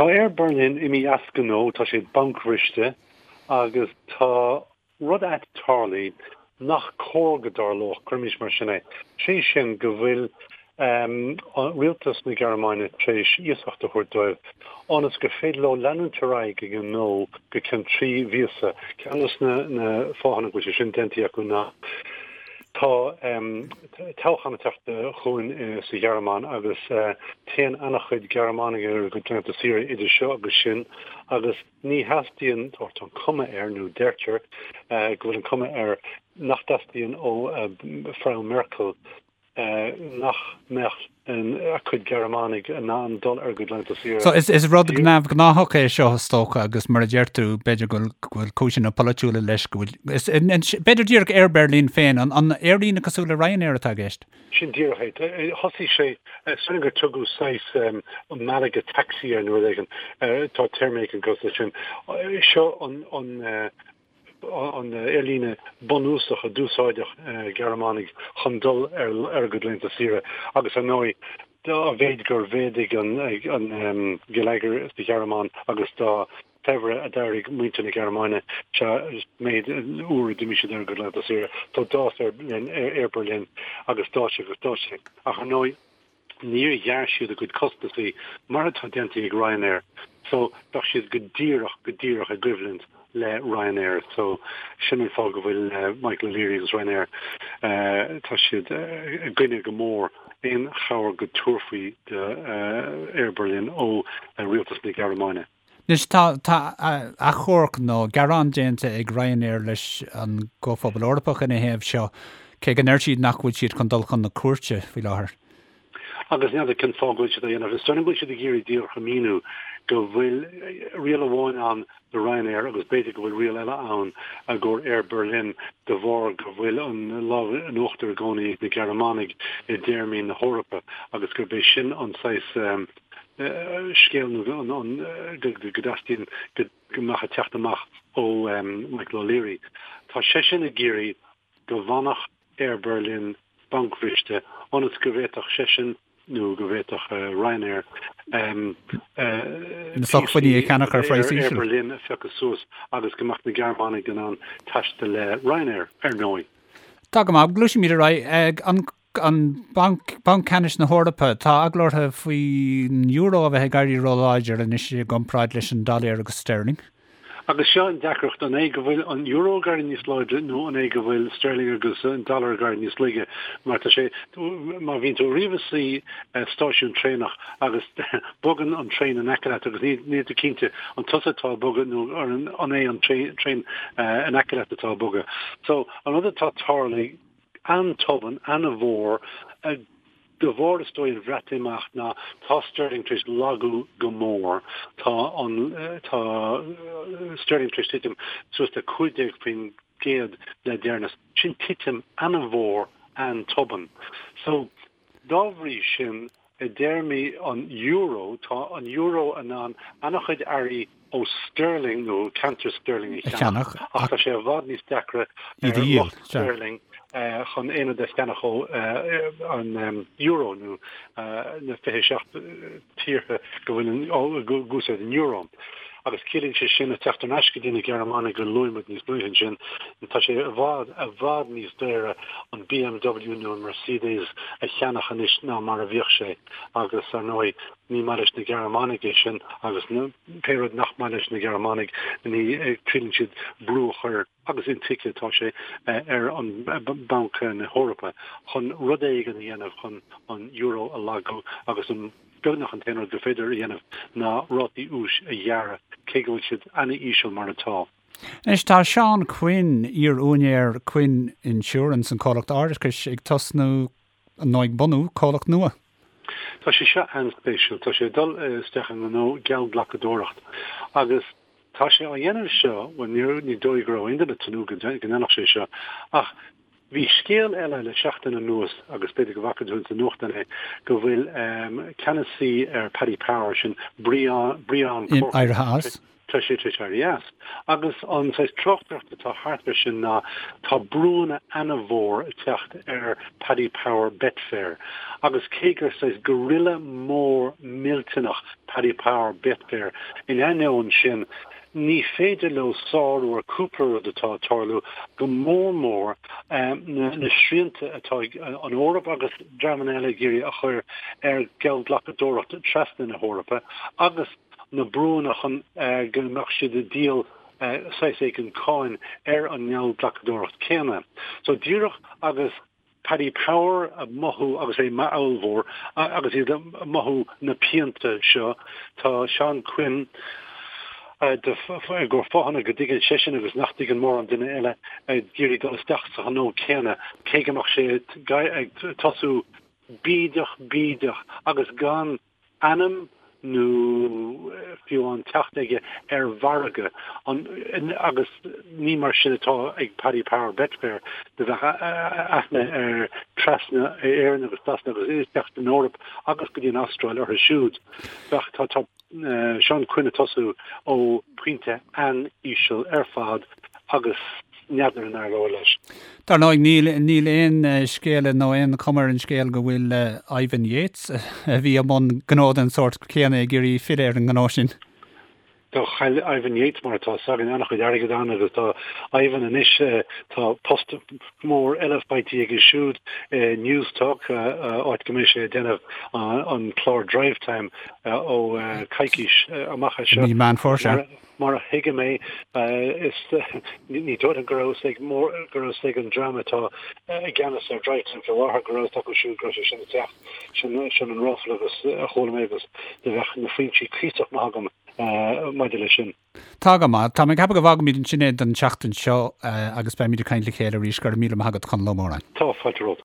Tá Air Berlin imithe as gnó, tá sé bancbhriste agus tá rud ait tarlaithe nach cóir go dtarlódh, cuirimis mar sin é, sé sin go bhfuil rialtas na Gearmáine tar éis iasacht a thabhairt dóibh ionas gur féidir leo leanúint ar aghaidh ag a ngnó go ceann 3 mhíosa. Ceann de na fáthanna go bhfuil sé sin déanta acu ná tá toghchán ag teacht chugainn sa Ghearmáin agus téann an-chuid Gearmánaigh ar a gcuid laethanta saoire idir seo agus sin agus ní theastaíonn, tá an cuma air, nó deirtear go bhfuil an cuma air nach dteastaíonn ó Frau Merkel nach mbeadh a cuid Gearmánaigh in ann dul ar a gcuid laethanta saoire. So is rud neamhghnáthach é seo is dócha agus mar a deir tú b'fhéidir go bhfuil cúiseanna polaitiúla leis go bhfuil, b'fhéidir díreach Air Berlin féin, an aerlíne cosúil le Ryanair atá i gceist? Sin díreach é. Thosaigh sé, is dóigh liom gur tugadh saghas Malaga taxi air nó rud éigin, tá téarma éigin cosúil leis sin. Seo an an aerlíne bunúsach a d'úsáideadh Gearmánaigh chun dul ar a gcuid laethanta saoire agus ar ndóigh dá mhéid gur mhéadaigh an geilleagar sa Ghearmáin agus dá shaibhre a d'éirigh muintir na Gearmáine sea méid uair a d'imigh siad ar a gcuid laethanta saoire. So d'fhás Air Berlin agus d'fhás sé agus d'fhás sé ach ar ndóigh Níor ghearr siad a gcuid costasaí mar atá déanta ag Ryanair so bheadh siad go díreach, go díreach i gcoimhlint le Ryanair so sin an fáth go bhfuil Michael O'Leary agus Ryanair, tá siad i gcoinne go mór aon chabhair go dtabharfaí do Air Berlin ó rialtas na Gearmáine. Anois, tá tá achomharc nó gearán déanta ag Ryanair leis an gComhphobal Eorpach ina thaobh seo, cé go ndeir siad nach bhfuil siad chun dul chun na cúirte faoi láthair. Agus n'fheadar cén fáth go bhfuil siad á dhéanamh. Is dóigh liom go bhfuil siad ag iarraidh díreach a mhíniú go bhfuil riail amháin ann do Ryanair agus b'fhéidir go bhfuil riail eile ann i gcomhair Air Berlin de bharr go bhfuil an lámh in uachtar i gcónaí ag na Gearmánaigh i dtéarmaí na hEorpa agus gurb é sin an saghas scéal nó go dteastaíonn go mbeadh ag teacht amach ó Michael O'Leary. Tá seisean ag iarraidh go bhfanfadh Air Berlin bancbhriste ionas go bhféadfadh seisean nó go bhféadfadh Ryanair na sócmhainní a cheannach ar phraghas íseal. Air Berlin a phiocadh suas agus go mbeadh na Gearmánaigh in ann taisteal le Ryanair, ar ndóigh. Tá go maith. Gluaisimid ar aghaidh. An An Banc, Banc Ceannais na hEorpa, tá eagla orthu faoin euro a bheith ag éirí róláidir anois i gcomparáid leis an dollar agus sterling. Agus seo an deacracht, an é go bhfuil an euro ag éirí níos láidre nó an é go bhfuil sterling agus an dollar ag éirí níos laige? Mar tá sé, má bhíonn tú riamh i suí stáisiún traenach agus bogann an traein in aice leat agus níl tú cinnte an tusa atá ag bogadh nó an é an traein in aice leat atá ag bogadh. So, an rud atá tarlaithe, an-tobann, an-mhór, de bharr is dóigh an Bhreatimeacht ná tá sterling tar éis lagú go mór. Tá an, tá sterling tar éis titim suas le 15% le deireanas. Sin titim an-mhór, an-tobann. So, dá bhrí sin, I dtéarmaí an euro, tá an euro in ann an-chuid earraí ó sterling nó ceantar sterling a cheannach, ach tá sé i bhfad níos deacra ar lucht sterling chun aon rud a cheannach ó an euro nó na 27 tíortha go bhfuil ag úsáid an euro. Agus ciallaíonn sé sin, ag teacht thar n-ais go dtí na Gearmánaigh a luaigh muid níos luaithe ansin, tá sé i bhfad, i bhfad níos daora an BMW nó an Mercedes a cheannach anois ná mar a bhíodh sé. Agus, ar ndóigh, ní maith leis na Gearmánaigh é sin agus pé rud nach maith leis na Gearmánaigh, ní triaileann siad brú a chur, agus intuigthe atá sé, ar an Banc na hEorpa chun rud éigin a dhéanamh chun an euro a lagú agus an beagnach an t-aon rud gur féidir a dhéanamh ná rátaí úis a ghearradh, cé go bhfuil siad an-íseal mar atá. Anois tá Seán Quinn, iar-úinéir Quinn Insurance, an comhlacht árachais, ag tosnú, nó ag bunú, comhlacht nua. Tá sé seo an-spéisiúil. Tá sé ag dul isteach i ngnó geallghlacadóireacht agus tá sé á dhéanamh seo, bhuel ní dóigh go raibh aon duine ag tnúth go ndéanfadh sé seo, ach bhí scéal eile le seachtain anuas agus b'fhéidir go bhfaca tú ins an nuachtán é, go bhfuil ceannasaí ar Paddy Power, sin Brian Corcoran, éirithe as. Tá sé tar éis éirí as. Agus an saghas tráchtaireacht atá thart air sin ná tá brúanna ana-mhór ag teacht ar Paddy Power Betfair agus cé gur saghas gorilla mór millteanach Paddy Power Betfair, in ainneoin sin ní féidir leo sárú ar cúpla rud atá ag tarlú, go mór mór na srianta atá ag an Eoraip agus dreamanna eile ag iarraidh a chur ar gheallghlacadóireacht trasna na hEorpa agus na brúanna chun go mbeadh siad ag díol saghas éigin cáin ar an ngeallghlacadóireacht céanna. So díreach agus Paddy Power ag mothú agus é ollmhór agus iad ag mothú na pianta seo, tá Seán Quinn i gcomhair fáthanna go dtuigeann seisean agus nach dtuigeann mórán duine eile ag iarraidh dul isteach sa ghnó céanna cé go mbeadh sé ag tosú bídeach bídeach agus gan ainm nó fiú amháin teacht aige ar mhargadh an agus ní mar sin atá ag Paddy Power Betfair do bheadh aithne ar trasna Éireann agus Sasana agus isteach san Eoraip agus go dtí an Astráil orthu siúd. Bheadh tá tá Seán Quinn ag tosú ó phointe an-íseal ar fad agus n'fheadar an éireoidh leis. Dar ndóigh, níl níl aon scéala nó aon chuma ar an scéal go bhfuil Ivan Yates, a bhí i mbun gnó den sórt céanna, ag iarraidh filleadh ar an ngnó sin. Do chaill Ivan Yates, mar atá 'fhios againn, an-chuid airgid ann agus tá Ivan anois, tá post mór eile faighte aige siúd i Newstalk, áit go mbeidh sé ag déanamh an clár Drivetime ó coicís amach as seo. I mí Meán Fómhair, sea. Mar a thuigim é, is ní dóigh liom go raibh 'fhios ag mór, go raibh 'fhios ag an dream atá i gceannas ar Drivetime faoi láthair go raibh 'fhios acu siúd go raibh sé sin ag teacht. Sin, sin an ráfla agus a chuala mé agus do bheadh na foinsí cuíosach maith agam maidir leis sin. Tá go maith. Tá mé ag ceapadh go bhfágfaimid ansin é don tseachtain seo agus beimid ag caint le chéile arís. Go raibh míle maith agat, Conall Ó Móráin. Tá, fáilte romhat.